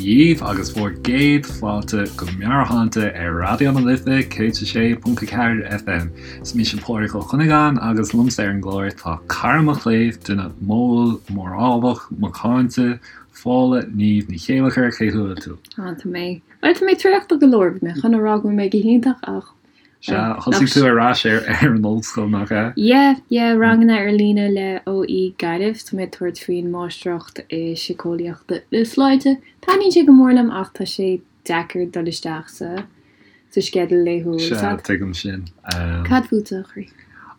dhíbh agus bhur gcéad fáilte go Meabhairshláinte ar Raidió na Life 106.4 FM. Is mise Pádraig Ó Cuinneagáin agus liomsa ar an gclár tá cara mo chléibh, duine modhúil, mórálach, macánta, Fódhla Niamh Ní Chéilleachair, cén chaoi a bhfuil tú? Á, tá mé, bhuel, tá mé traochta go leor, bhí mé chun a rá go bhfuil mé go hiontach ach Sea, thosaigh tú ar ais ar an ollscoil, nach ea? Yeah, yeah, ranganna ar líne le OÉ Gaillimh. Tá mé ag tabhairt faoin Máistreacht i Síceolaíocht na Sláinte. Taitníonn sé go mór liom ach tá sé deacair dul isteach sa sa sceideal laethúil. Sea, tuigim sin. Cad fútsa, a chroí?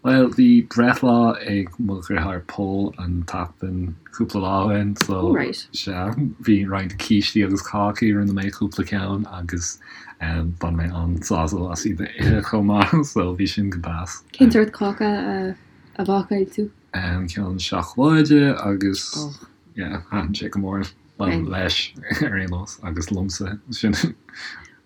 Bhuel, bhí breithlá ag mo dheartháir Pól an tseachtain cúpla lá ó shin, so Oh right. sea, bhí roinnt cístí agus cácaí, rinne mé cúpla ceann agus Bhain mé an-sásamh as iad a ithe chomh maith, so bhí sin go deas. Cén sórt cáca a bhácáil tú? Ceann seacláide agus yeah, thaitin sé go mór leis ar aon nós agus liomsa sin.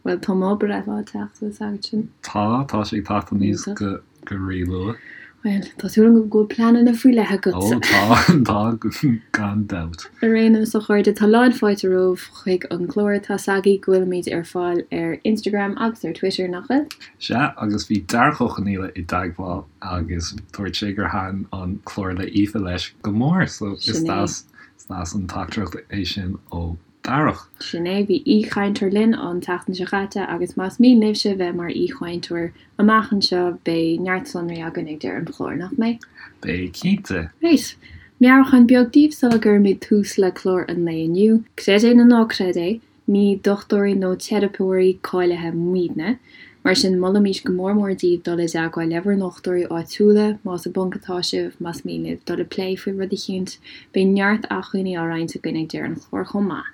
Bhuel, tá mo breithlá ag teacht, tá a fhios agat sin. Tá, tá sé ag teacht aníos go. Go rí-luath. Bhuel, tá súil agam go bhfuil pleananna faoi leith agat. Ó, tá, tá, gan dabht. Ar aon nós, a chairde, tá lán fáilte romhaibh chuig an gclár. Tá 's agaibh go bhfuilimid ar fáil ar Instagram agus ar Twitter, nach bhfuil? Sea, agus bhí Darach Ó Conaola i dteagmháil agus dúirt sé gur thaitin an clár le Aoife leis go mór, so is deas, is deas an teachtaireacht é sin ó Darach. Sin é, bhí aoichainteoir linn an tseachtain seo chaite agus más mian libhse bheith mar aoichainteoir amach anseo beidh neart sonraí againn ag deireadh an chláir, nach mbeidh? Beidh, cinnte. Right. Meabhrúchán beag daoibh sula gcuirimid tús le clár an lae inniu. Creid é nó ná creid é, ní dochtúirí nó teiripeoirí cáilithe muidne. Mar sin, molaimid go mór mór daoibh dul i dteagmháil le bhur ndochtúirí áitiúla, más i bponc atá sibh, más mian libh dul ag plé faoi rud eicínt. Beidh neart acmhainní á roinnt againn ag deireadh an chláir chomh maith.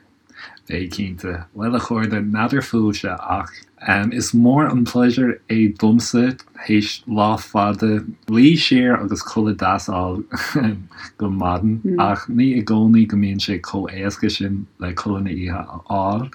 Beidh, cinnte. Bhuel, a chairde, n'fheadar fúibhse ach is mór an pléisiúr é domsa, théis lá fada, luí siar agus codladh deas a fháil go maidin, ach ní i gcónaí go mbíonn sé chomh éasca sin le codladh na oíche a fháil.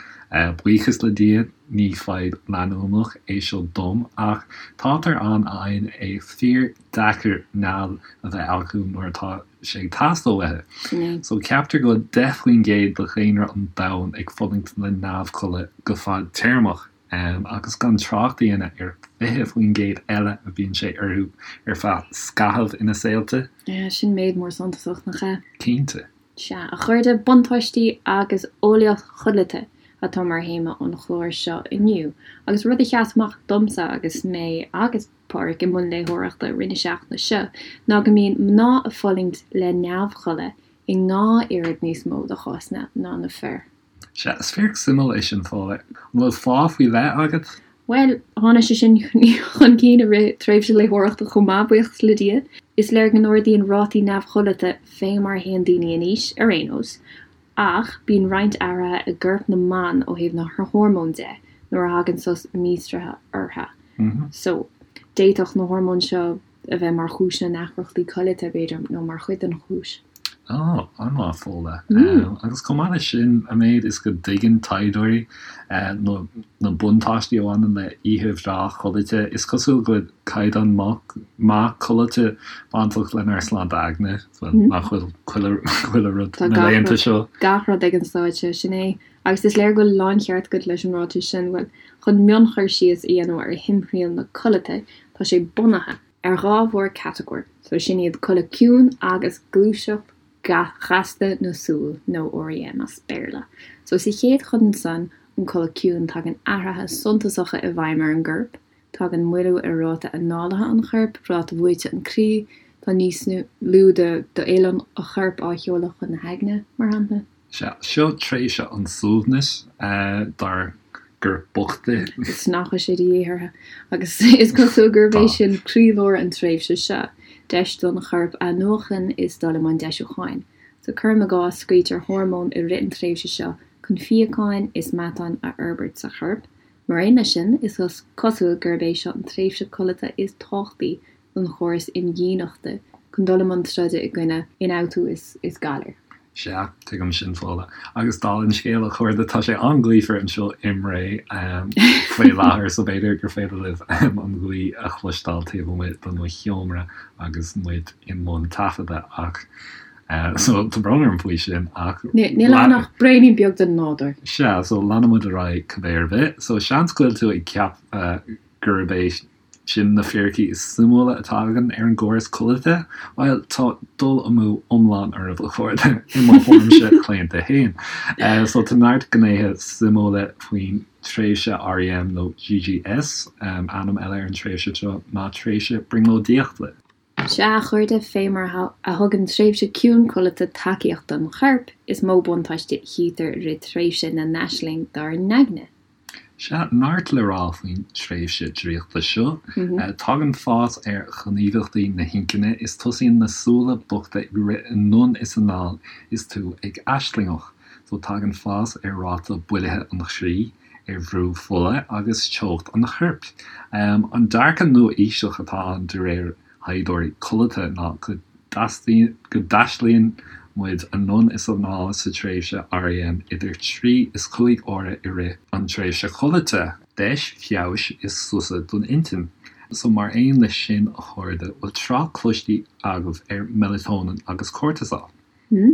Buíochas le Dia, ní fadhb leanúnach é seo dom, ach táthar ann a fhaigheann é fíor deacair nead a bheith acu nuair atá sé ag teastáil uathu. So ceaptar go bhfuil 10% de dhaonra an domhain ag fulaingt le neamhchodladh go fadtéarmach, agus gan trácht a dhéanamh ar 20% eile a bíonn sé orthu ar feadh scaithimh ina saolta. Sin méid mór suntasach, nach ea? Cinnte. Sea, a chairde, buntáistí agus eolaíocht chodlata atá mar théama an chláir seo inniu, agus rud a sheas amach domsa agus mé agus Pádraig i mbun léitheoireachta i rith na seachtaine seo ná go mbíonn mná ag fulaingt le neamhchodladh i ndhá oiread níos mó de chásanna ná na fir. Sea, is fíric suimiúil é sin, Fódhla. An bhfuil fáth faoi leith agat? Bhuel, tháinig sé sin chun cinn i rith tréimhse léitheoireachta chomh maith, buíochas le Dia. Is léir go n-ardaíonn rátaí neamhchodlata fé mar a théann daoine in aois, ar aon nós, ach bíonn roinnt athruithe i gcorp na mban ó thaobh na hormón de nuair a thagann sos míostraithe orthu. So, d'fhéadfadh na hormóin seo a bheith mar chúis na ndeacrachtaí codlata, b'fhéidir, nó mar chuid den chúis. Ó, an-mhaith, Fódhla. Agus chomh maith leis sin, an méid is go dtuigeann taighdeoirí na buntáistí a bhaineann le oíche bhreá chodlata, is cosúil go bhfuil caighdeán maith codlata bainteach lenár sláinte aigne, nach bhfuil chuile rud na laethanta seo. Tá gach rud ag an stáid seo, sin é. Agus is léir go bhfuil láncheart agat leis an ráiteas sin, bhuel, chun mionchur síos a dhéanamh ar thimthriall na codlata, tá sé bunaithe. ar dhá mhórchatagóir, so sin iad codladh ciúin agus gluaiseacht ghasta na súl, nó REM as Béarla. So sa chéad chuid ansan, an codladh ciúin, tagann athruithe suntasacha i bhfeidhm ar an gcorp, tagann moilliú ar ráta análaithe an choirp, ráta bhuaite an chroí, tá níos lú d'fhuil an choirp á sheoladh chun na haigne, mar shampla. Sea, seo tréimhse an tsuaimhnis dár gcorp bochta. Is nach bhfuil sé de dhíth orthu. Agus is cosúil gurb é sin croílár an tréimhse seo, deis don chorp athnuachan is dul i mbun deisiúcháin. So cuirim i gcás, scaoiltear hormóin i rith an tréimhse seo chun fíocháin is meatán a fhorbairt sa chorp. Mar aon leis sin, is cosúil gurb é seo an tréimhse codlata is tábhachtaí don chóras imdhíonachta chun dul i mbun troda i gcoinne ionfhabhtú is galair. Sea, tuigim sin, Fódhla. Agus dála an scéil, a chairde, tá sé an-ghaofar anseo i mBré faoi láthair, so b'fhéidir gur féidir libh an ghaoth a chloisteáil taobh amuigh de mo sheomra agus muid i mbun taifeadta, ach. So tá brón orm faoi sin ach. Níl ann ach braonín beag den nádúr. Sea, so leanfaidh muid ar aghaidh cibé ar bith. So seans go bhfuil tú ag ceapadh gurb é sin na fíricí is suimiúla atá againn ar an gcóras codlata? Bhuel, tá dul amú iomlán oraibh, a chairde, i mo thuairimse chlaonta féin. So tá neart gnéithe suimiúla faoin tréimhse REM nó GGS, ainm eile ar an tréimhse seo ná tréimhse brionglóidíochta. Sea, a chairde, fé mar a thugann tréimhse ciúin codlata tacaíocht don chorp, is mó buntáiste a chítear i rith tréimhse na n-aisling dár n-aigne. Sea, neart le rá faoin tréimhse draíochta seo. Tagann fás ar ghníomhaíochtaí na hinchinne is tosaíonn na súile bochta ag rith anonn is anall is tú ag aislingeach. So tagann fás ar ráta builithe an chroí, ar bhrú fola agus teocht an choirp. An dearcadh nua-aoiseach atá ann de réir thaighdeoirí codlata ná go dtaistealaíonn muid anonn is anall sa tréimhse REM idir 3 is 5 uaire i rith an tréimhse chodlata. Deis feabhais is sosa don intinn. So mar aon leis sin a chairde, bhfuil trácht cloiste agaibh ar melatonin agus cortisol?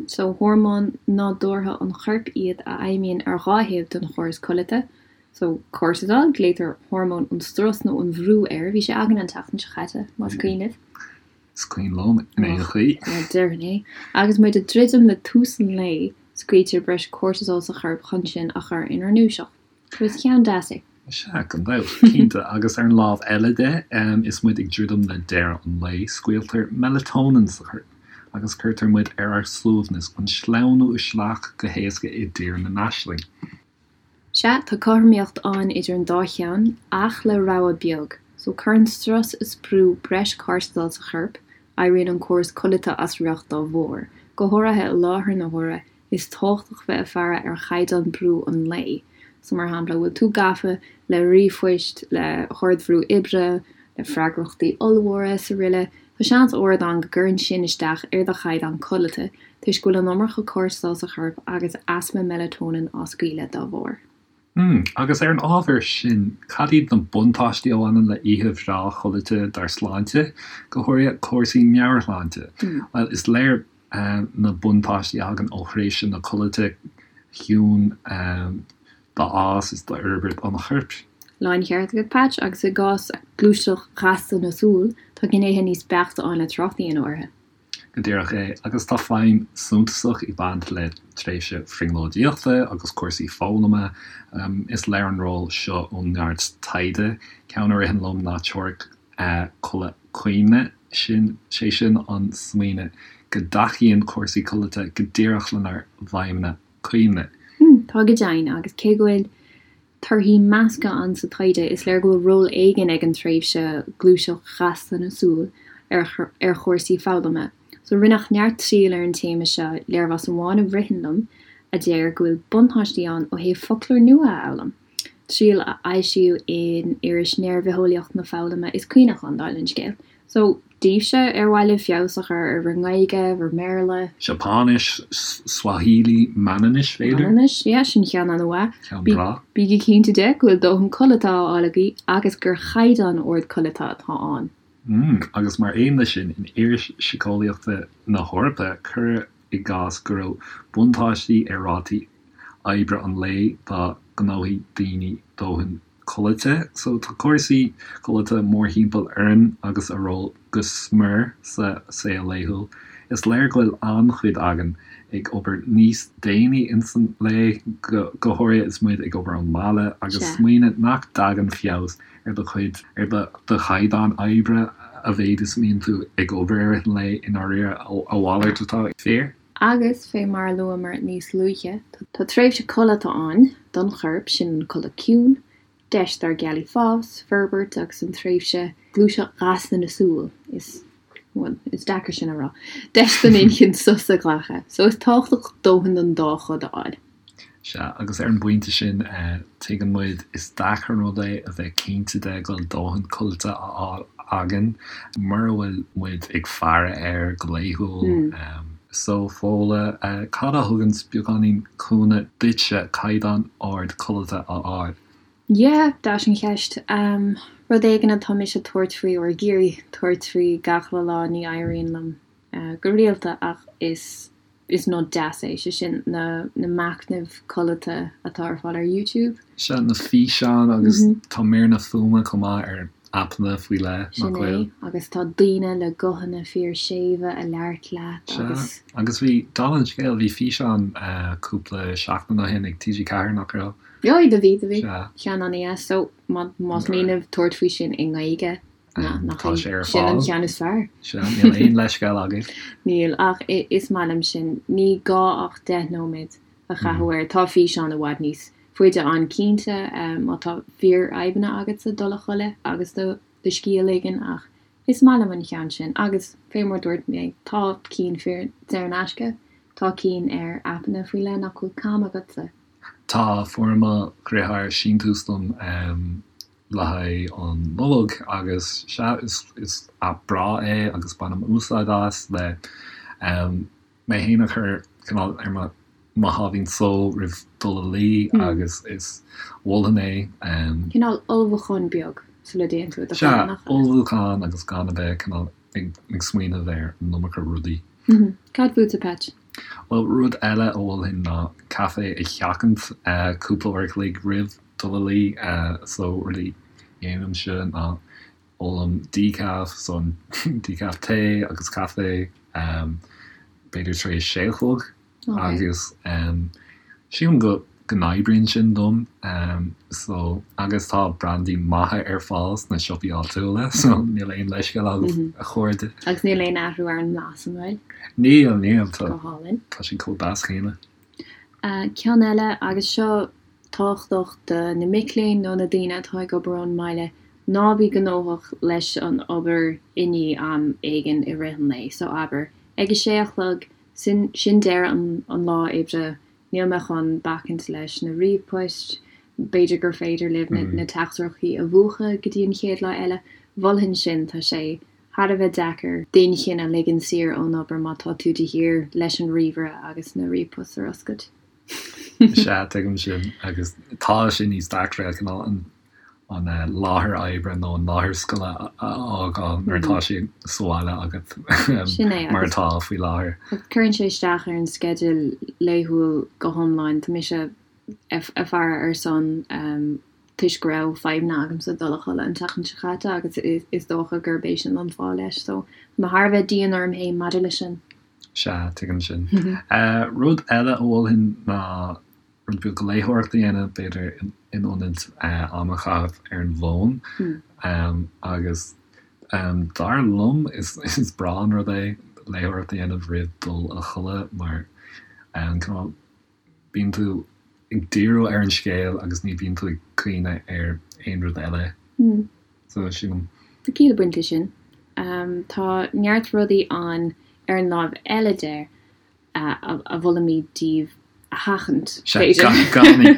So, hormóin nádúrtha an choirp iad a fheidhmíonn ar dhá thaobh den chóras codlata. So, cortisol, glaotar hormón an strus nó an bhrú air, bhí sé againn an tseachtain seo chaite, más cuimhin libh. Is cuimhin liom, in aon chaoi. Bhuel, déarfainn é. Agus muid ag druidim le tús an lae, scaoiltear breis cortisol sa chorp chun sinn a chur inár ndúiseacht. So is ceann deas é. Sea, gan dabht, cinnte. Agus ar an lámh eile de, is muid ag druidim le deireadh an lae, scaoiltear melatonin sa chorp agus cuirtear muid ar ár suaimhneas chun sleamhnú isteach go héasca i dtír na n-aisling. Sea, tá cothromaíocht ann idir an dá cheann, ach le rogha beag. So, cuireann strus is brú breis cortisol sa chorp, éiríonn an córas codlata as riocht dá bharr, go háirithe i láthair na huaire, Is tábhachtach bheith ag faire ar chaighdeán brú an lae. So, mar shampla, bhfuil tú gafa le ríomhphoist, le hardbhrú oibre, le freagrachtaí ollmhóra is aroile, tá seans ard ann go gcuireann sin isteach ar do chaighdeán codlata toisc go bhfuil an iomarca cortisol sa chorp agus easpa melatonin á scaoileadh dá bharr. Hmm, agus ar an ábhar sin, cad iad na buntáistí a bhaineann le oíche bhreá chodlata dár sláinte, go háirithe cúrsaí meabhairshláinte? Bhuel, is léir na buntáistí a thagann ó thréimhse na codlata ciúin d'fhás is d'fhorbairt an choirp. Láncheart agat, Patch, agus i gcás gluaiseacht ghasta na súl, tá gnéithe níos beaichte ann le trácht a dhéanamh orthu. Go díreach é, agus tá feidhm suntasach ag baint le tréimhse bhrionglóidíochta agus cúrsaí foghlama. Is léir an ról seo ó neart taighde. Ceann a ritheann liom ná teoiric codladh cuimhne, sin, sé sin an smaoineamh go dtacaíonn cúrsaí codlata go díreach lenár bhfeidhmeanna cuimhne. Tá go deimhin, agus cé go bhfuil torthaí measctha ann sa taighde, is léir go bhfuil ról éigin ag an tréimhse gluaiseacht ghasta na súl ar ar chúrsaí foghlama. So rinneadh neart triail ar an téama seo, léirmheas amháin a ritheann liom a deir go bhfuil buntáistí ann ó thaobh foclóir nua a fhoghlaim. Triail a foilsíodh in iris Néaraibhitheolaíocht na Foghlama is Cuimhneachán, dála an scéil. So, daoibhse, ar mhaith libh feabhas a chur ar bhur nGaeilge, bhur mBéarla? Seapáinis, Swahili, Manainnis, b'fhéidir? Manainnis, yeah, sin ceann an-mhaith. Ceann breá. Bígí cinnte de go bhfuil dóthain codlata á fháil agaibh agus gur chaighdeán ard codlata atá ann. Mm, agus mar aon leis sin, in Iris Síceolaíochta na hEorpa, cuireadh i gcás go raibh buntáistí ar rátaí oibre an lae dá ngnóthaigh daoine dóthain codlata. So tá cúrsaí codlata mórthimpeall orainn agus a ról go smior sa saol laethúil. Is léir go bhfuil an-chuid againn ag obair níos déanaí ins an lae, go háirithe is muid ag obair ón mbaile, agus smaoineamh nach dtagann feabhas ar do chuid, ar do chaighdeán oibre a mhéid is a mbíonn tú ag obair i rith an lae, i ndáiríre, a mhalairt atá fíor. Agus, fé mar a luamar níos luaithe, tá tréimhse codlata ann don chorp, sin an codladh ciúin, deis dár gceallaí fás, forbairt agus an tréimhse gluaiseacht ghasta na súl, is, bhuel, is deacair sin a rá, deis don inchinn sos a ghlacadh. So is tábhachtach dóthain den dá chud a fháil. Sea, agus ar an bpointe sin, tuigeann muid, is deacair an rud é a bheith cinnte de go bhfuil dóthain codlata á fháil againn mura bhfuil muid ag faire air go laethúil. So, Fódhla, cad a thugann beagáinín cúnamh duitse caighdeán ard codlata a fháil? Yeah, deas an cheist. Rud éigin atá mise ag tabhairt faoi, or ag iarraidh tabhairt faoi gach uile lá, ní éiríonn liom. go rialta ach is is nod deas é, sé sin na na machnaimh codlata atá ar fáil ar YouTube. Sea, na físeáin agus tá míreanna fuaime chomh maith ar aipeanna faoi leith, nach bhfuil? Sin é, agus tá daoine le guthanna fíor séimhe ag labhairt leat agus. Sea, agus bhí, dála an scéil, bhí físeán cúpla seachtain ó shin ag TG4, nach raibh? Bhí, do bhí, do bhí. Sea. Ceann an-dheas, so más mian libh tabhairt faoi sin i nGaeilge, Nach Tá sé ar sin an fáil. ceann is fearr? Sea, níl aon leithscéal agaibh. Níl, ach is maith liom sin. Ní gá ach 10 nóiméad a chaitheamh air. Tá físeán i bhfad níos faide ann cinnte, má tá fíorfhadhbanna agatsa dul a chodladh agus do do scíth a ligean ach is maith liom an ceann sin. Agus fé mar dúirt mé, tá cinn fíor saor in aisce, tá cinn ar aipeanna faoi leith nach bhfuil cam agatsa. Tá, fuair mo dheartháir síntiús dom. le haghaidh an Nollag agus sea, is aip breá é agus bainim úsáid as le mé féin a chur cineál ar mo mo sháimhín só roimh dul a luí agus is mholfainn é. Cineál ullmhúchán beag sula dtéann tú i do chodladh, nach ea? Sea, ullmhúchán agus gan a bheith cineál ag smaoineamh ar an iomarca rudaí. Cad fútsa, Patch? Bhuel, rud eile a mholfainn ná caife a sheachaint cúpla uair a chloig roimh dul a luí. So, rud a dhéanaimse ná ólaim decaf, so an decaf tae agus caife, b'fhéidir tar éis sé a chlog. Agus sílim go go n-oibríonn sin dom so agus tá brandaí maithe ar fáil sna siopaí áitiúla so níl aon leithscéal agam a chairde. Agus níl aon athrú ar an mblas, an bhfuil? Níl, níl, tá Go hálainn. tá sé chomh deas céanna. Ceann eile, agus seo tábhachtach do na mic léinn nó na daoine atá ag obair ón mbaile, ná bí gnóthach leis an obair i ndiaidh am éigin i rith an lae. So abair, ag a sé a chlog, sin sin deireadh an lá oibre, Níl mé chun bacaint leis na ríomhphoist, b'fhéidir gur féidir libh na teachtaireachtaí a mhúchadh go dtí an chéad lá eile. Mholfainn sin, tá sé thar a bheith deacair d'inchinn a ligean saor ón obair má tá tú de shíor leis an ríomhaire agus na ríomhpoist ar oscailt. Sea, tuigim sin agus tá sé níos deacra cineál an an láthair oibre nó an láthair scoile a fhágáil nuair atá sé sa bhaile agat mar atá faoi láthair. Cuireann sé isteach ar an sceideal laethúil go hiomlán. Tá mise ag faire ar son toisc go raibh fadhbanna agamsa dul a chodladh an tseachtain seo caite agus is dócha gurb é sin an fáth leis. So tá mé thar a bheith dian orm féin maidir leis sin. Sea, tuigim sin. Rud eile a mholfainn ná rud beag léitheoireachta a dhéanamh, b'fhéidir, in ionad am a chaitheamh ar an bhfón. Agus dar liom, is breá an rud é léitheoireacht a dhéanamh roimh dul a chodladh mar cineál bíonn tú ag díriú ar an scéal agus ní bhíonn tú ag cuimhneamh ar aon rud eile. So, sílim. Tá ciall ag baint leis sin. Tá neart rudaí ann ar an láimh eile de a mholaimid daoibh a sheachaint, b'fhéidir.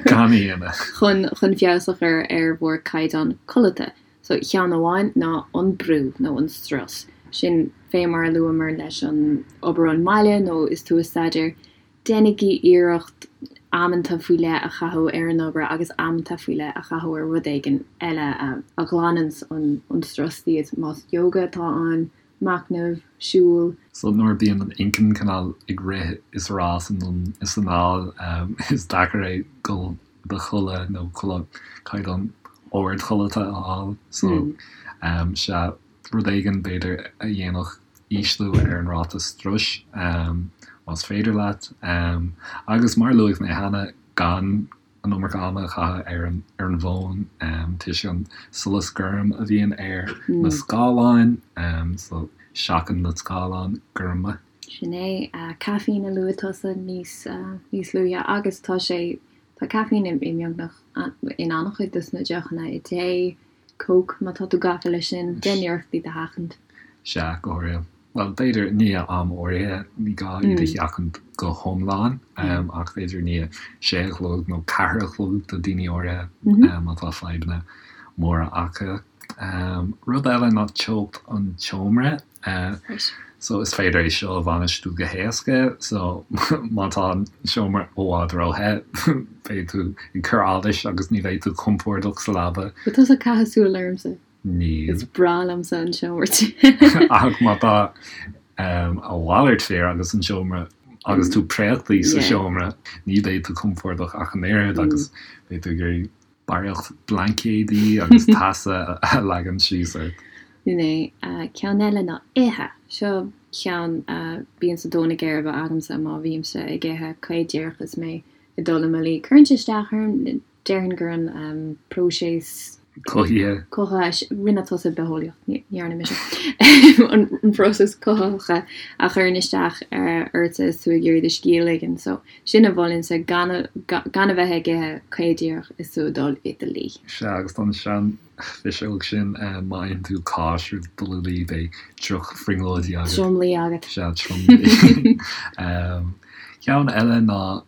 Gan a dhéanamh. Chun chun feabhas a chur ar bhur gcaighdeán codlata. So, ceann amháin ná an brú nó an strus. Sin fé mar a luamar leis an obair ón mbaile nó is tú ag staidéar, déanaigí iarracht amanta faoi leith a chaitheamh ar an obair agus amanta faoi leith a chaitheamh ar rud éigin eile a ghlananns an strus díot, más yoga atá ann, machnamh, siúl. So nuair a bíonn an inchinn cineál ag rith is rás anonn is anall, is deacair é dul do chodladh nó codladh caighdeán ard codlata a fháil. So sea, rud éigin b'fhéidir a dhéanfadh ísliú ar an ráta struis, más féidir leat. Agus mar a luaigh mé cheana, gan an iomarca ama a chaitheamh ar an ar an bhfón toisc an solas gorm a bhíonn ar na scáileáin so seachain na scáileáin gorma. Sin é. Caiféin a luaigh tusa níos níos luaithe agus tá sé tá caiféin i mbeagnach in an-chuid dos na deochanna i dtae, Coke má tá tú gafa leis sin, déan iarracht iad a sheachaint. Sea, go háirithe. Bhuel, b'fhéidir i ndiaidh am áirithe, ní gá iad a sheachaint go hiomlán, ach b'fhéidir i ndiaidh sé a chlog nó ceathair a chlog do daoine áirithe má tá fadhbanna móra acu. Rud eile ná teocht an tseomra. So is féidir é seo a bhainistiú go héasca. So má tá an seomra i bhfad róthe, beidh tú ag cur allais agus ní bheidh tú compordach sa leaba. Bhfuil tusa ag caitheamh súil ormsa? Níl. Is breá liomsa an seomra te. Ach má tá. A mhalairt fíor agus an seomra agus tú préachtaí sa seomra, ní bheidh tú compordach ach an oiread agus beidh tú ag iarraidh barraíocht blaincéidí agus teasa a leagan síos ort. Sin é. Ceann eile ná ithe. Seo ceann a bíonn sa dó na geirbe agamsa má bhímse ag ithe caoch díreach is mé ag dul i mo luí. Cuireann sé isteach orm. Déarfainn gur an próiseas. Cothaithe. Cothaithe. Rinne tusa bitheolaíocht, ní dhearna mise. An próiseas cothaithe a chuireann isteach ortsa is tú ag iarraidh do scíth a ligean. So, sin a mholfainnse, gan gan a bheith ag ithe caoch díreach is tú ag dul i do luí. Sea, agus don seanphiseog sin, má itheann tú cáis roimh dul a luí, beidh droch-bhrionglóidí agat. Tromluí agat. Sea, tromluí. Ceann eile ná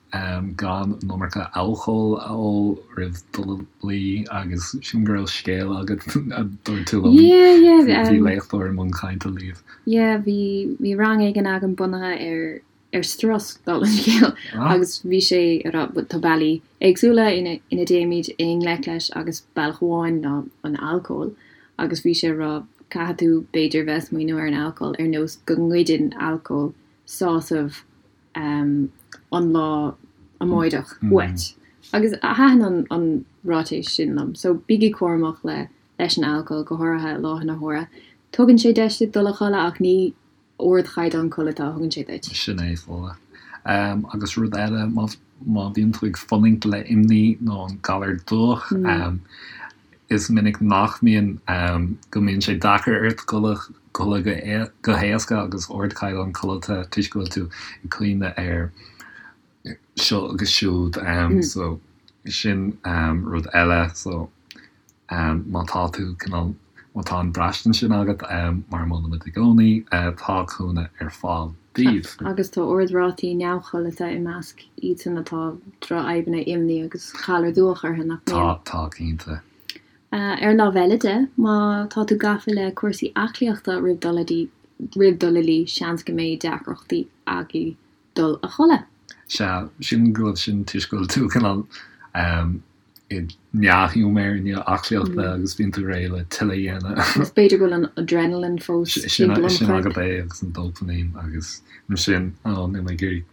gan an iomarca alcóil a ól roimh dul a luí agus sílim go raibh scéal agat a dúirt tú liom. Yeah, yeah. Bhí léachtóir i mbun cainte libh. Yeah, bhí bhí rang éigin agam bunaithe ar ar strus, dála an scéil, agus bhí sé ag rá tá bealaí éagsúla ina ina dtéimid i ngleic leis agus bealach amháin ná an alcól agus bhí sé ag rá caithfidh tú b'fhéidir bheith ag smaoineamh ar an alcól ar nós go ngoideann alcól sásamh an lá amáireach uait. Agus thaitin an ráiteas sin liom. So bígí cúramach le leis an alcól, go háirithe i láthair na huaire. Tugann sé deis duit dul a chodladh ach ní ardchaighdeán codlata a thugann sé duit. Sin é, Fódhla. Agus rud eile, má má bhíonn tú ag fulaingt le imní nó an galar dubhach, Is minic nach mbíonn, go mbíonn sé deacair ort codladh go héasca agus ardchaighdeán codlata toisc go bhfuil tú ag cuimhneamh ar seo agus siúd. So sin rud eile. So má tá tú cineál, má tá an braistint sin agat, mar a molaimid i gcónaí, tá cúnamh ar fáil daoibh. Agus tá ard-rátaí neamhchodlata i measc iadsan atá drochfhadhbanna imní agus galar dubhach orthu, nach mbíonn? Tá, tá, cinnte. Ar an lámh eile de, má tá tú gafa le cúrsaí aclaíochta roimh dul roimh dul a luí, seans go mbeidh deacrachtaí agaibh dul a chodladh. Sea, sílim go bhfuil sin toisc go bhfuil tú cineál i ndea-ghiúmar i ndiaidh aclaíochta agus bíonn tú réidh le tuilleadh a dhéanamh. Agus b'fhéidir go bhfuil an adrenaline fós timpeall an choirp. Sin agat é agus an dópaimín agus ansin, ó, níl mé ag iarraidh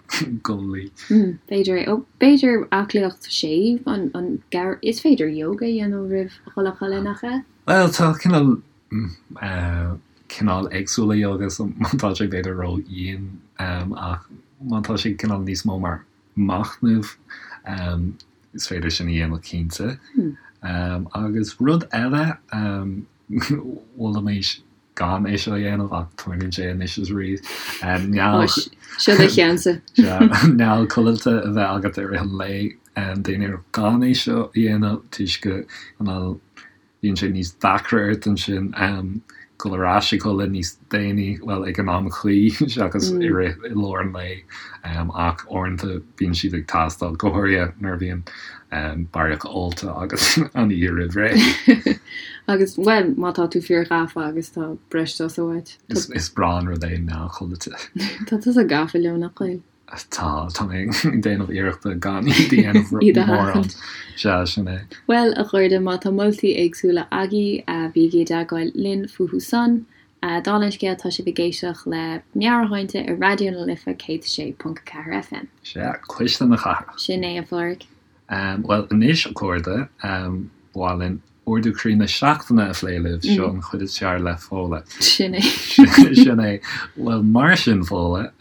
dul a luí. B'fhéidir é. Ó, b'fhéidir aclaíocht séimh, an, an, is féidir yoga a dhéanamh roimh dhul a chodladh, nach ea? Bhuel, tá cineál, cineál éagsúla yoga, so má tá sé b'fhéidir ró-dhian, ach má tá sé cineál níos mó mar machnamh, Is féidir sin a dhéanamh cinnte. Agus rud eile, mholfaimis gan é seo a dhéanamh ach tarlaíonn sé anois is arís, neall Seo do cheannsa. Neall codlata a bheith agat i rith an lae. Déan iarracht gan é seo a dhéanamh toisc go Bíonn sé níos deacra ort ansin dul ar ais a chodladh níos déanaí, bhuel, ag an am cuí seachas i rith, i lár an lae, ach uaireanta bíonn siad ag teastáil, go háirithe nuair a bhíonn barraíocht ólta agat an oíche roimh ré. Agus, bhuel, má tá tú fíorghafa agus tá breis sosa uait. Is breá an rud é neall codlata. Tá tusa gafa leo, nach bhfuil? Tá, tá mé ag déanamh iarrachta gan iad a dhéanamh Iad a mórán. sheachaint. Sea, sin é. Bhuel, a chairde, má tá moltaí éagsúla agaibh, bígí i dteagmháil linn fúthu san. Dála an scéil, tá sibh ag éisteacht le Meabhairshláinte ar Raidió na Life 106.4 FM. Sea, cuisle na cathrach. Sin é, a Phádraig. Bhuel, anois, a chairde, ba mhaith linn Ardú croí na seachtaine a phlé libh, seo an chuid is fearr le Fódhla. Sin é. Sin é. Bhuel, mar sin, Fódhla,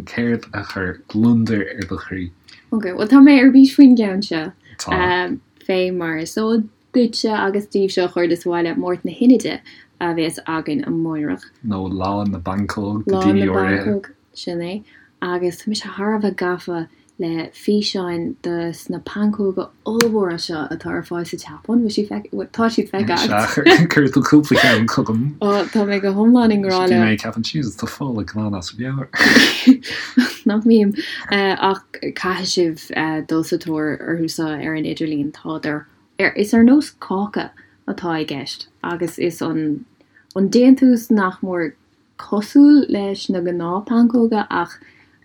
céard a chuir gliondar ar do chroí? Ok, bhuel tá mé ar bís faoin gceann seo. Tá. Fé mar is eol duitse agus daoibhse a chairde sa bhaile, Máirt na hInide a bheas againn amáireach. Nó Lá na bPancóg do dhaoine áirithe. Lá na bPancóg. Sin é. Agus tá mise thar a bheith gafa le físeáin de sna pancóga ollmhóra seo atá ar fáil sa tSeapáin. Bhfuil siad feic-, tá siad feicthe agat. Sea, chuir tú cúpla ceann chugam. Ó, tá mé go hiomlán i ngrá leo. Bhí mé ag ceapadh, Jesus, tá Fódhla glan as a meabhair. Nach mbím. Ach caithfidh sibh dul sa tóir orthu seo ar an idirlíon. Tádar ar, is ar nós cáca atá i gceist agus is an, an déantús nach mór cosúil leis na gnáth-pancóga ach.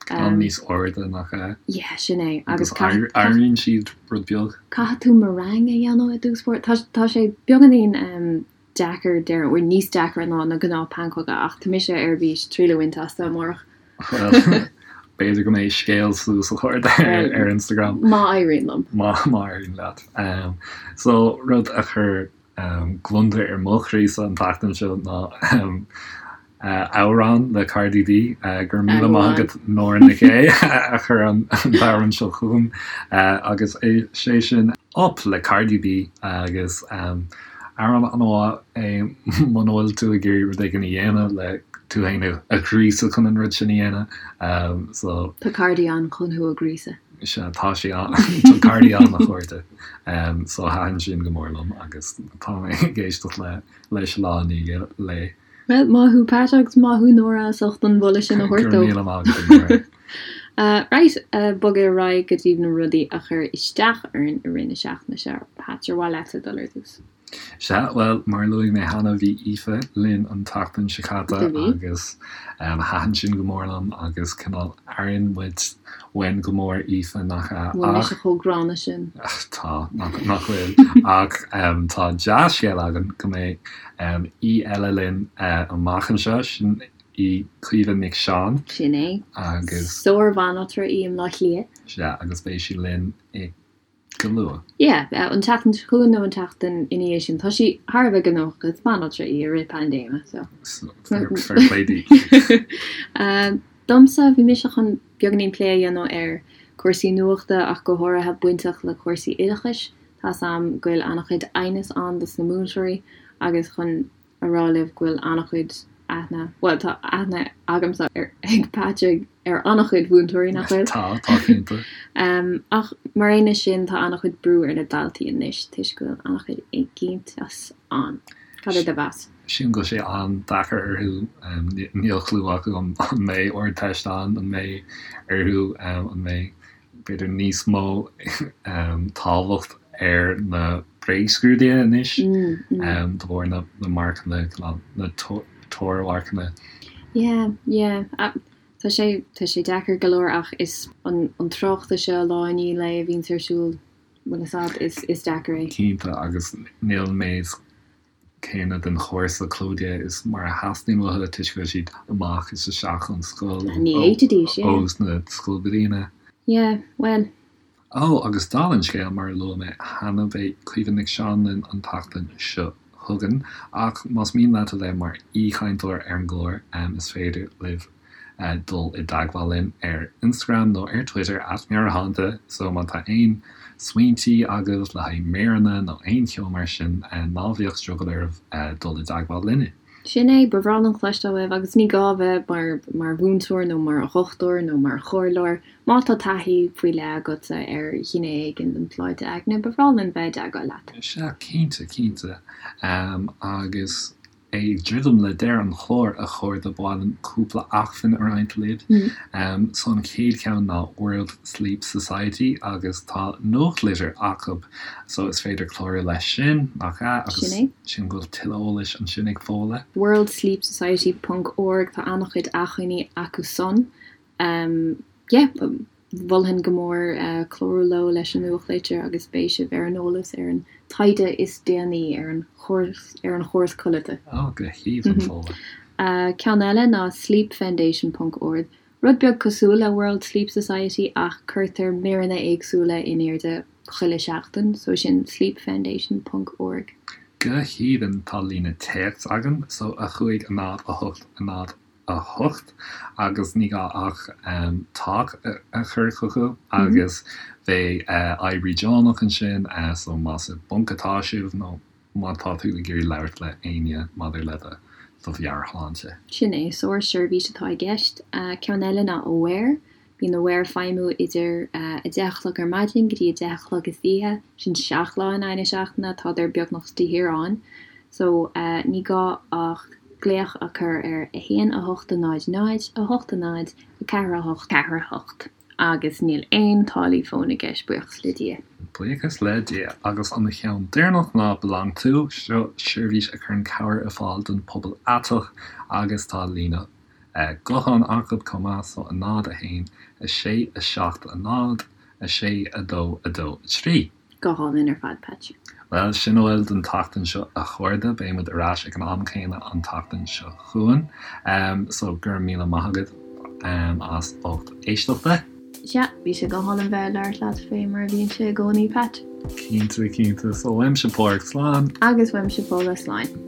Ceann níos airde, nach ea? Yeah, sin é. Agus éiríonn siad rud beag. Caithfidh tú meringue a dhéanamh i dtús báire. Tá sé beagáinín. deacair, déarfainn, bhuel níos deacra ná na gnáth pancóga ach tá mise ar bís triail a bhaint astu amárach. Bhuel, b'fhéidir go mbeidh scéal suas a chairde ar Instagram. Má éiríonn liom. Má éiríonn leat. So, rud a chuir gliondar ar mo chroísa an tseachtain seo ná amhrán le Cardi B. Go raibh míle maith agat Nóra Nic Aodha a chuir an t-amhrán seo chugam agus is é sin Up le Cardi B agus amhrán an-mhaith é muna bhfuil tú ag iarraidh rud éigin a dhéanamh le tú féin a ghríosadh chun an rud sin a dhéanamh. So. Tá Cardi ann chun thú a ghríosadh. Sea, tá sí ann, tá Cardi ann a chairde. So thaitin sin go mór liom agus tá mé ag éisteacht leis lá i ndiaidh lae. Bhuel, maith thú Pat agus maith thú Nóra as ucht an mholadh sin a thabhairt dó. Go raibh míle maith agat a Nóra. Right, bogadh ar aghaidh go dtí na rudaí a chuir isteach orainn i rith na seachtaine seo. Pat, ar mhaith leatsa dul ar dtús? Sea, bhuel, mar a luaigh mé cheana, bhí Aoife linn an tseachtain seo caite agus thaitin sin go mór liom agus cineál airíonn muid uainn go mór Aoife, nach ea? Bhfuil mise chomh gránna sin? Tá, nach bhfuil. Ach tá dea-scéal againn go mbeidh aoi eile linn amach anseo, sin í Caoimhe Nic Seáin. Sin é. Agus. Sár-bhanaltra í i mBleá Cliath. Sea, agus beidh sí linn i go luath. Yeah, an tseachtain seo chugainn nó an tseachtain ina dhiaidh sin. Tá sí thar a bheith gnóthach, is banaltra í i rith paindéime, so. Fair play di. Domsa, bhí mise chun beagáinín plé a dhéanamh ar cúrsaí nuachta ach go háirithe bainteach le cúrsaí oideachais. Tá's a'm go bhfuil an-chuid aighneas ann dos na múinteoirí agus chun a rá libh go bhfuil an-chuid aithne, bhuel tá aithne agamsa ar, ag Patrick ar an-chuid mhúinteoirí, nach bhfuil? Tá, tá cinnte. Ach mar aon leis sin tá an-chuid brú ar na daltaí anois toisc go bhfuil an-chuid éiginnteacht ann. Cad é do mheas? Sílim go bhfuil sé an-deacair orthu, níl clue acu an mbeidh Ardteist ann, an mbeidh orthu, an mbeidh b'fhéidir níos mó tábhacht ar na bréagscrúduithe anois de bharr na marcanna, na teormharcanna. Yeah, yeah. Tá sé, tá sé deacair go leor ach is an tráchtas seo lá i ndiaidh lae a bhíonns ar siúl, bhfuil fhios a'd, is, is deacair é. Cinnte, agus níl an méid céanna den chúrsa clóite is mar a theastaíonn uathu toisc go bhfuil siad amach is isteach ón scoil Ní fhéadfaidís, yeah. ó sna scoilbhliana. Yeah, bhuel. Ó, agus dála an scéil, mar a luaigh mé cheana, beidh Caoimhe Nic Seáin linn an tseachtain seo chugainn, ach más mian leat a bheith mar aoichainteoir ar an gclár, is féidir libh dul i dteagmháil linn ar Instagram nó ar Twitter at Meabhairshláinte so má tá aon smaointí agaibh le haghaidh míreanna nó aon cheo mar sin ná bíodh drogall oraibh dul i dteagmháil linne. Sin é, ba bhreá linn cloisteáil uaibh agus ní gá a bheith mar mar mhúinteoir nó mar dhochtúir nó mar chomhairleoir, má tá taithí faoi leith agatsa ar ghné éigin den tsláinte aigne, ba bhreá linn bheith i dteagmháil leat. Sea, cinnte, cinnte. Agus Ag druidim le deireadh an chláir, a chairde, ba mhaith liom cúpla acmhainn a roinnt libh. So an chéad cheann ná World Sleep Society agus tá nuachtlitir acu so is féidir clárú leis sin, nach ea? Agus Sin é. sílim go bhfuil tuilleadh eolais ansin ag Fódhla. worldsleepsociety ponc org tá an-chuid acmhainní acu san. Yeah, mholfainn go mór clárú leo leis an nuachtlitir agus beidh sibh ar an eolas ar an taighde is déanaí ar an ar an chóras codlata. Ó, go haoibhinn, Fódhla. Ceann eile ná sleepfoundation ponc org, rud beag cosúil le World Sleep Society ach cuirtear míreanna éagsúla in airde chuile sheachtain, so sin sleepfoundation ponc org. Go haoibhinn, tá líne téacs againn, so 5 0 8 0 8 agus ní gá ach talk a chur chucu agus beidh oibrí deonach ansin so más i bponc atá sibh nó má tá tú ag iarraidh labhairt le éinne maidir le do do mheabhairshláinte. Sin é, sár-seirbhís atá i gceist. Ceann eile ná Aware. Bíonn Aware ag feidhmiú idir 10 a chlog ar maidin go dtí 10 a chlog istoíche, sin 7 lá in aghaidh na seachtaine, tádar beagnach de shíor ann. So, ní gá ach glaoch a chur ar 1 8 0 0 8 0 4 8 4 8 agus níl aon táillí fóin i gceist, buíochas le Dia. Buíochas le Dia. Agus an cheann deireanach ná Belong To, seo seirbhís a chuireann cabhair ar fáil don pobal aiteach agus tá líne Guthán acu chomh maith so 0 1 6 7 0 6 2 2 3. Go hálainn ar fad, Patch. Bhuel, sin a bhfuil don tseachtain seo a chairde, beidh muid ar ais ag an am céanna an tseachtain seo chugainn. So, go raibh míle maith agat as ucht éisteachta. Sea, bhí sé go hálainn bheith ag labhairt leat fé mar a bhíonn sé i gcónaí, Pat. Cinnte, cinnte. So, uaimse Pádraig, slán. Agus uaimse Fódhla, slán.